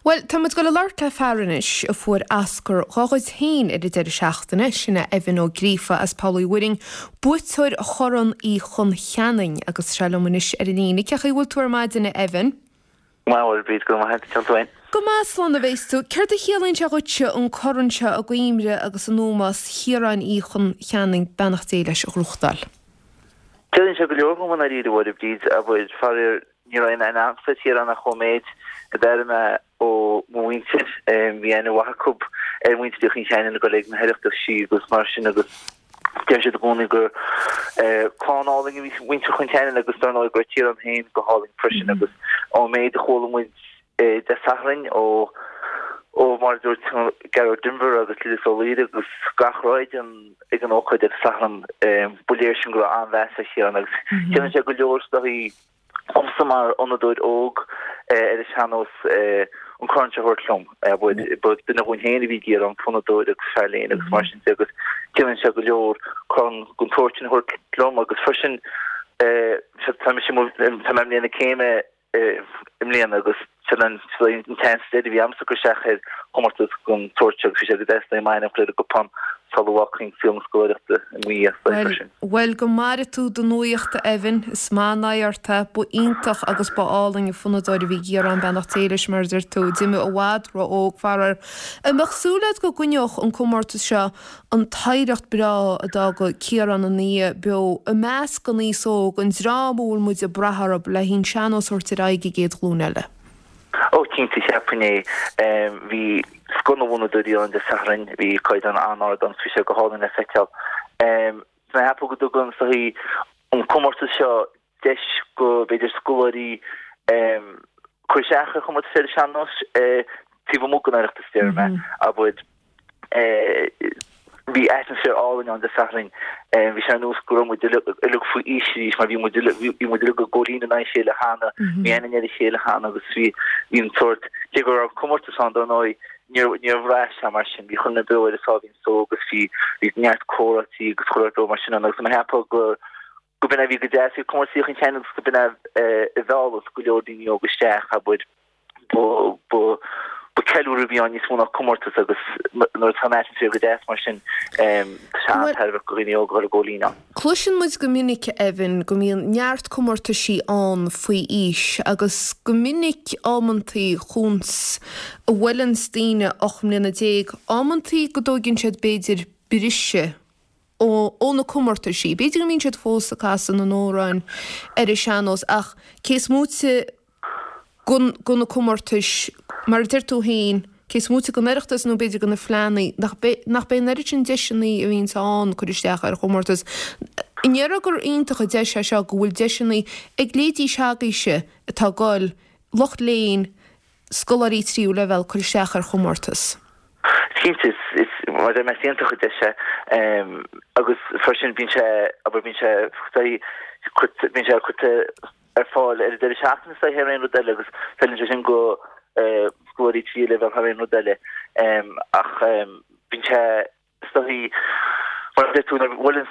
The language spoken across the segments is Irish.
Bhuel, tá muid ag dul a labhairt le fear anois a fuair Oscar dhá chuid féin ar an deireadh seachtaine, sin é Evan Ó Gríofa as Poll Uí Mhuirinn, buaiteoir Chorn Uí Chon Cheanainn, agus tá sé liom anois ar an líne. Cén chaoi a bhfuil tú ar maidin, a Evan? Go maith, a Mháire Bríd, go raibh maith agat, cén chaoi tú féin? Go maith, slán a bheas tú. Céard a chiallaíonn sé dhuitse an corn seo i gcuimhne agus in ómós Chiaráin Uí Chon Cheanainn, beannacht Dé leis, a ghnóthachtáil? Ciallaíonn sé go leor dhom i ndáiríre, a Mháire Bríd, abair, faraor, Ní raibh aon aithne agamsa ar Chiarán ach ón méid a d'airigh mé ó mo mhuintir. Bhí aithne mhaith acu ar mhuintir Uí Chon Cheanainn ag dul ag na hOireachtaisí agus mar sin agus deir siad i gcónaí gur clann álainn a bhí muintir Chon Cheanainn agus dar ndóigh go raibh Ciarán féin go hálainn freisin agus ón méid a chuala muid Dé Sathairn ó ó mar a dúirt Gearóid Denvir agus Lillis Ó Laoire agus gach raibh ag an ócáid ar an Satharn ba léir sin go raibh an-mheas ar Chiarán agus ciallaíonn sé go leor is dóichí domsa mar fhonnadóir óg ar an sean-nós an corn seo a thabhairt liom. Ba duine dhúinn féin a bhí i gCiarán, fonnadóir agus fear léinn agus mar sin de agus ciallaíonn sé go leor corn den tsórt sin a thabhairt liom agus freisin tá mise tá mé i mbliain na céime i mbliana agus sin an tseans deiridh a bhí agamsa cur isteach ar chomórtas den tsórt seo agus bhí sé go deas m'ainm a chur ar an gcupán sula bhfágfainn saol na scoláireachta i mo dhiaidh freisin. Bhuel, go maire tú do nuaíocht, a Evan. Is maith an aghaidh ort é. Ba iontach agus ba álainn an fonnadóir a bhí i gCiarán, beannacht Dé leis, mar a deir tú. D'imigh i bhfad ró-óg, faraor. An mbeadh súil agat go gcoinneodh an comórtas seo an t-oidhreacht breá a d'fhága Ciarán ina dhiaidh beo i measc an aos óg, an dream a bhfuil muid ag brath orthu le an sean-nós a thabhairt ar aghaidh an gcéad ghlúin eile. Ó cinnte, cheapfainn é. Bhí scoth na bhfonnadóirí ann Dé Sathairn, bhí caighdeán an-ard ann, bhí sé go hálainn le feiceáil. Tá mé ag ceapadh go dtugann is dóichí an comórtas seo deis go b'fhéidir scoláirí cur isteach ar chomórtas ar an sean-nós taobh amuigh den Oireachtas, déarfaidh mé, abair. Bhí atmaisféar álainn ann Dé Sathairn. Bhí sé ar nós go raibh muid uilig faoi aois arís mar bhí muid uilig bhí muid uilig ag góilín in aghaidh a chéile cheana, bhí aithne ar a chéile cheana agus bhí bhí an sórt, cé go raibh comórtas ann dar ndóigh, níor níor bhraith sé mar sin, bhí chuile dhuine beo ar a sáimhín só agus bhí bhí neart comhráití agus chuile shórt mar sin ann agus mé ag ceapadh go go b'in é a bhí go deas faoi chomórtas Uí Chon Cheanainn agus go b'in é a mheallas go leor daoine óga isteach, abair. Ba ba ceiliúradh a bhí ann níos mó ná comórtas agus nuair atá an atmaisféar go deas mar sin, tá sé an-tairbheach do dhaoine óga a dhul ag góilín ann. Cloiseann muid go minic, Evan, go mbíonn neart comórtaisí ann faoi aois agus go minic amantaí chúns a bhuaileanns daoine 18 mbliana, amantaí go dtóigeann siad b'fhéidir briseadh ó na comórtaisí. B'fhéidir go mbíonn siad fós ag casadh na n-amhrán ar an sean-nós ach cé is móite de na comórtais, mar a deir tú féin, cé is móite den Oireachtas nó b'fhéidir de na fleánna, nach nach b'é an oiread sin deiseanna a bhíonns ann cur isteach ar chomórtas. An ndéarfá gur iontach an deis é seo go bhfuil deiseanna ag leithéidí s'agaibhse atá ag goil, lucht léinn, scoláirí tríú leibhéal cur isteach ar chomórtas. Cinnte, is, mar a deir mé, is iontach an deis é agus freisin bíonn sé, abair, bíonn sé, bíonn sé curtha ar fáil ar an deireadh seachtaine is thar aon rud eile agus feileann sé sin go scoláirí tríú leibhéal thar aon rud eile ach bíonn sé Is dóichí, mar a deir tú, nuair a bhuaileann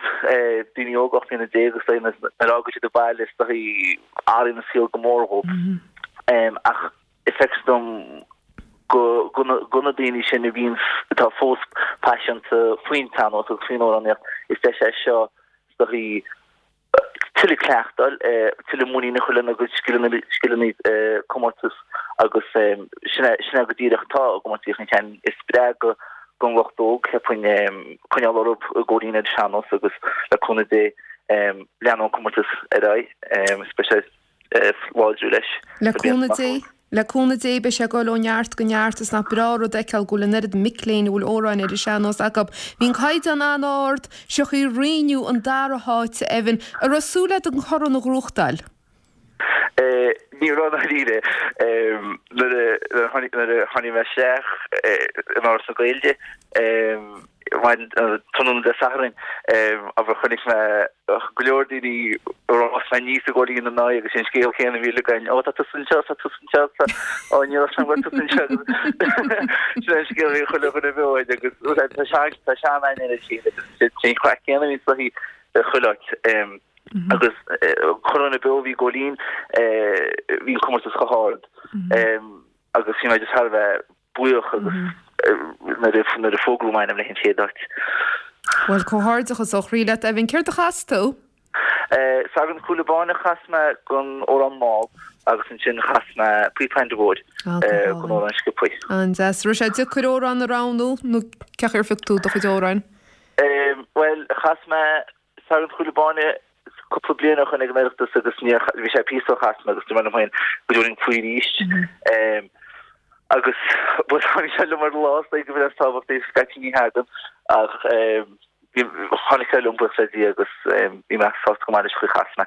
daoine óga 18 mbliana is dóichí nuair a fhágann siad an baile is dóichí athraíonn an saol go mór dhóibh. Ach is feictear dom go go na daoine sin a bhíonn atá fós paiseanta faoin tsean-nós agus faoin amhránaíocht, is deis é seo is dóichí tuilleadh cleachtáil, tuilleadh muinín a chur lena gcuid scileanna, scileanna comórtais agus sin é, sin é go díreach atá i gcomórtas Uí Chon Cheanainn. Is spreagadh don lucht óg, cheapfainn, coinneáil orthu ag góilín ar an sean-nós agus le cúnamh Dé leanfaidh an comórtas ar aghaidh is beidh sé láidriú leis. Le cúnamh Dé, le cúnamh Dé beidh sé ag dul ó neart go neart is nach breá rud a fheiceáil go bhfuil an oiread mic léinn a bhfuil amhráin ar an sean-nós acu. Bhí an caighdeán an-ard, seo chugaibh inniu an dara háit, a Evan. An raibh súil agat an corn a ghnóthachtáil? Ní raibh i ndáiríre. Nuair a tháinig mé isteach in Áras na Gaeilge, Tráthnóna Dé Sathairn, abair, chonaic mé go leor daoine a raibh mé aníos ag góilín ina n-aghaidh agus an scéal céanna a bhí uilig againn, Ó, tá tusa anseo, tá tusa anseo, tá, ó, ní raibh sé go raibh tusa anseo. Sin an scéal a bhí chuile dhuine beo agus tá sean, tá sean-aithne ar a chéile agus sin an chraic céanna a bhí sa chuile áit. Agus chuile dhuine beo a bhí ag góilín, bhí an comórtas chomh hard. Agus bhí mé just thar a bheith buíoch agus nuair a nuair a fógraíodh m'ainm le an chéad áit. Bhuel, comhghairdeachas ó chroí leat, Evan. Céard a chas tú? Sagart an Chúile Báin a chas mé don amhrán mall agus ansin chas mé Píopa Aindí Mhóir don amhrán sciobtha. An-deas. Raibh sé deacair amhrán a roghnú nó cén chaoi ar phioc tú do chuid amhráin? Bhuel, chas mé Sagart an Chúile Báin cúpla bliain ó shoin ag an Oireachtas agus níor, bhí sé píosa ó chas mé agus dúirt mé liom féin go dtabharfainn faoi arís. Agus bhuel tháinig sé liom ar an lá is dóigh go bhfuil is tábhachtaí scaití ní thagann ach tháinig sé liom buíochas le Dia agus bhí mé sásta go maith leis an chaoi a chas mé.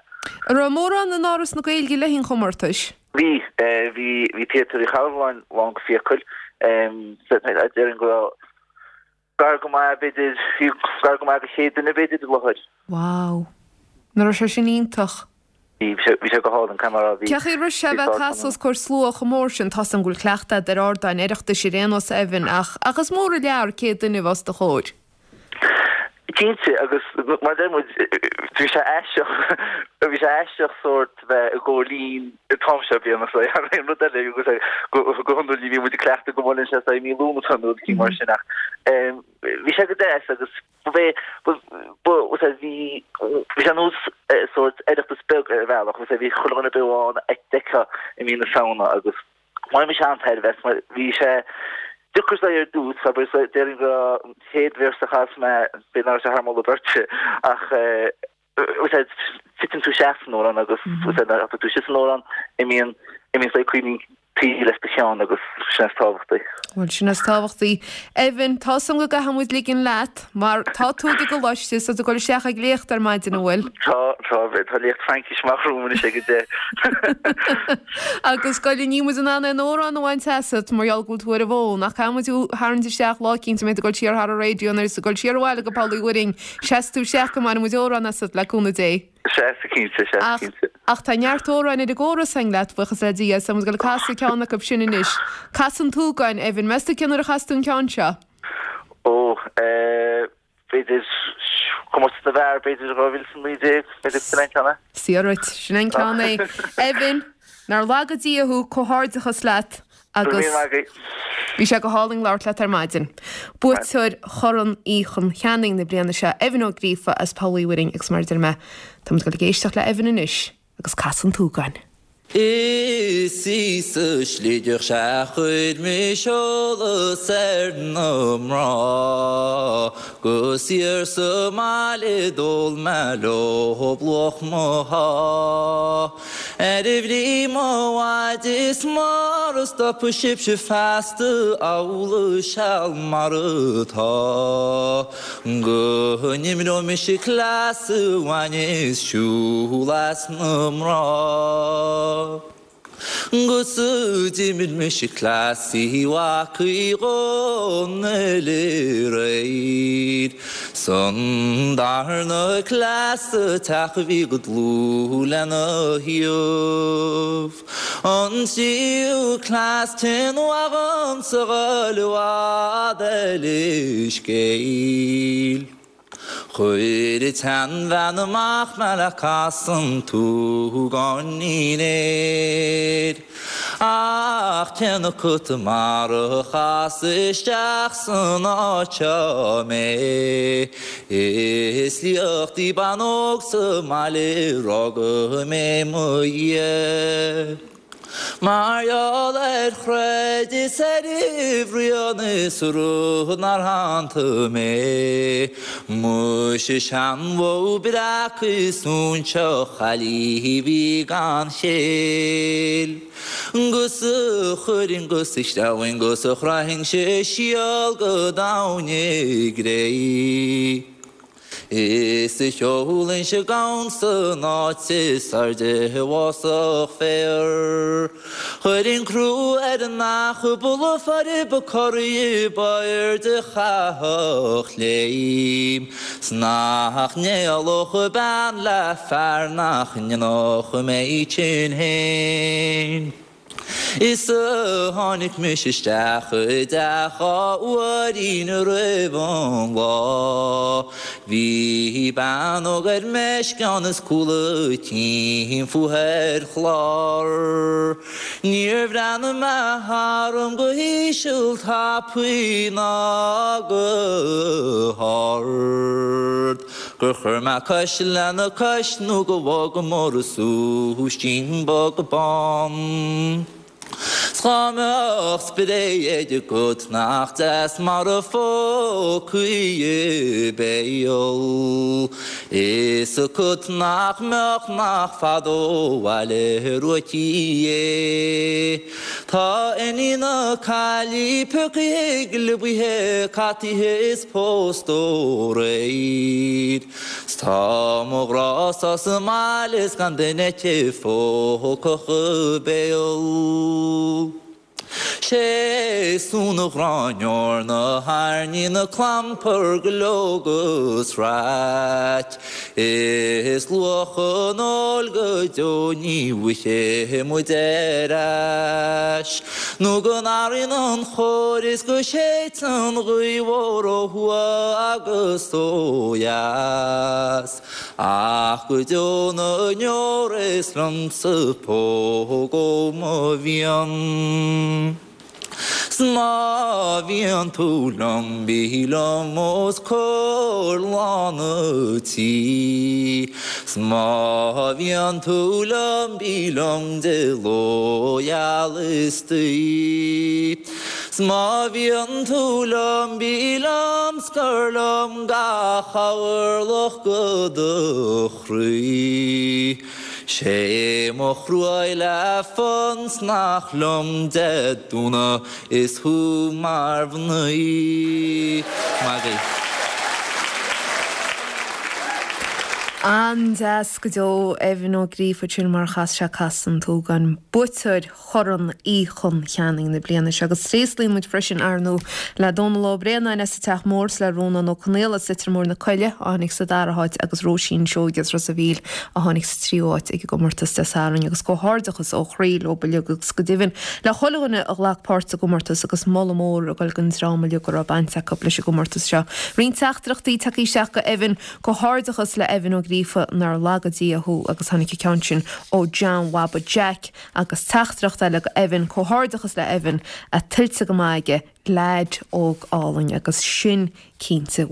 An raibh mórán in Áras na Gaeilge le haghaidh an chomórtais? Bhí, bhí, bhí Téatar Uí Charbhalláin lán go fiacail. Déarfainn go raibh Gar go maith, b'fhéidir, bhí gar go maith do 100 duine, b'fhéidir, i láthair. Wow. Nach raibh sé sin iontach? Bhí, bhí sé, bhí sé go hálainn, caithfidh mé a rá, bhí, Cén chaoi a raibh sé a bhí bheith ag sár casadh os comhair slua chomh mór sin? Tá's agam go bhfuil cleachtadh agat ar ardáin Oireachtais ar aon nós, Evan, ach, ach is mór an lear 100 duine a bheith os do chomhair. Cinnte, agus mar a deir muid, bhí sé aisteach, bhí sé aisteach sórt bheith i gcomhair líon an t-am seo bliana so thar aon rud eile agus go hiondúil ní bhíonn muid ag cleachtadh go mbuaileann sé i mí Lúnasa nó rud eicínt mar sin ach bhí sé go deas agus ba bhé ba ba bhí bhí sé nós sórt Oireachtas beag ar bhealach agus bhí chuile dhuine beo ann a d'fheicfeá i mí na Samhna agus Bhain mise an-tairbhe as mar bhí sé deacair ar dtús, abair, déarfainn go raibh an chéad véarsa a chas mé, b'fhéidir nach raibh sé thar moladh beirte, ach titeann tú isteach san amhrán agus nuair a thiteann tú isteach san amhrán, imíonn, imíonn saghas cuimhní an tsaoil as do cheann agus sin is tábhachtaí. Bhuel, sin is tábhachtaí. Evan, tá 's agam go gcaithfidh muid ligean leat mar tá tú ag an gcoláiste is tá tú ag dul isteach ag léacht ar maidin, an bhfuil? Tá, tá, tá léacht Fraincise amach romham anois ag a 10. Agus goile, níl muid in ann aon amhrán a bhaint asat mar gheall go bhfuil tú ar an bhfón, ach caithfidh muid thú a tharraingt isteach lá eicínt a mbeidh tú ag dul siar thar an raidió nuair is ag dul siar abhaile go Poll Uí Mhuirinn, seasfaidh tú isteach go mbainfidh muid amhrán asat, le cúnamh Dé. Sea, cinnte, sea, Ach, cinnte. ach tá neart amhráin ar an gcóras againn leat, buíochas le Dia, so muid ag dul ag casadh ceann acu sin anois. Casadh an tSúgáin, Evan, meas tú cén uair a chas tú an ceann seo? Ó, eh, b'fhéidir, Comórtas na bhFear, b'fhéidir 2019, b'fhéidir sin an ceann é. Saor dhuit, sin an ceann é. Evan, nár laga Dia thú, comhghairdeachas leat agus bhí sé go hálainn labhairt leat ar maidin. Buaiteoir Chorn Uí Chon Cheanainn na bliana seo, Evan Ó Gríofa as Poll Uí Mhuirinn agus mar a deir mé, tá muid ag dul ag éisteacht le Evan anois agus Casadh an tSúgáin. Is í sa sligeach sea chuir mise eolas ar na mná 'Gus thiar sa mbaile d'ól mé leob luach mo shá. Ar bhrí mo mhaide is mara stopfaidh sibhse feasta amhlaidh seal mar atá go n-imreoidh mise cleas a bhaineas siúl as na mná. 'Gus d'imir mise cleas Uí Mhac Uí Dhónaill aréir 'S an darna cleas sa teach a bhí go dlúth lena thaobh. An tríú cleas téann uaidh dhomsa dhul i bhfad eile scéil. Chuir an tseanbhean amach mé le casadh an tsúgáinín air. Ach cén acu mar a chas isteach san áit seo mé, Is liacht í bean óg sa mbaile rugadh mé mo dhiaidh. Mar gheall ar chreid is ar bhruíon is rud nár shantaigh mé. Muise seanbhó breac is óinseach chaillí a bhí gan chéill. 'Gus a chuirfinn 'gus a shreabhainn 'gus a chroithfinnse síol go domhain i gcré. Is a sheolfainnse gann san áit is airde i bhfásach féar. Chuirfinn crú ar an each ba lafaire ba corraí ba airde a chaithfeadh léim. 'S nach n-éalódh bean le fear nach ndéanfadh mé tinn féin. Is a tháinig mise isteach i dteach dhá uairín roimh an lá. Bhí bean óg ar meisceán is cúl a cinn fúithi ar chlár. Níor bhreathnaigh mé tharam go híseal tapaidh ná go hard. Gur chuir mé cois lena cois nó go bhfágamar a súistín bog bán. 'S dhá mbeadh spré agat nach deas mar a phócaí a béal. Fhios agat nach mbeadh nach fada ó bhaile uaithi é. Tá iníon na caillí piocaithe gliobaithe cataithe is pósta aréir. 'S tá mo ghrá-sa sa mbaile is gan duine aici phógfadh a béal. 'Sé sú na gráinneoir na hairní na clampar go leog is raic. Is luach an óil go deo ní bhfaighidh muid ar ais. Nó go n-athraíonn an chóir is go séideann an ghaoth mhór ó thuaidh agus ó dheas. Ach go deo na ndeor is liomsa póg ó mo mhian. 'S má bhíonn tú liom, bí liom os comhair lán an tí. 'S má bhíonn tú liom, bí liom de ló gheal istoíche. 'S má bhíonn tú liom, bí liom 's cuir liom gach orlach de do chroí. 'Sé mo chruaidh le fon 's nach liom Dé Domhnaigh is thú mar mhnaoi. Maith agaibh. An-deas go deo, Evan Ó Gríofa, sin mar a chas sé Casadh an tSúgáin, buaiteoir Chorn Uí Chon Cheanainn na bliana seo. Agus tréaslaíonn muid freisin, ar ndóigh, le Dónal Ó Braonáin as an Teach Mór is le Rónán Ó Conaola as Leitir Móir na Coille a tháinig sa dara háit agus Róisín Seoige as Ros a' Mhíl a tháinig sa tríú háit ag an gcomórtas Dé Sathairn agus comhghairdeachas ó chroí leo uilig agus go deimhin le chuile dhuine a ghlac páirt sa gcomórtas agus moladh mór ag dul don dream uilig a raibh baint acu leis an gcomórtas seo. Roinnt teachtaireachtaí tagtha isteach go Evan, Comhghairdeachas le Evan Ó Gríofa nár laga Dia thú agus tháinig an ceann sin ó John Bhaba Jack agus teachtaireacht eile go Evan, Comhghairdeachas le Evan, tuillte go maith aige, leaid óg álainn agus sin cinnte.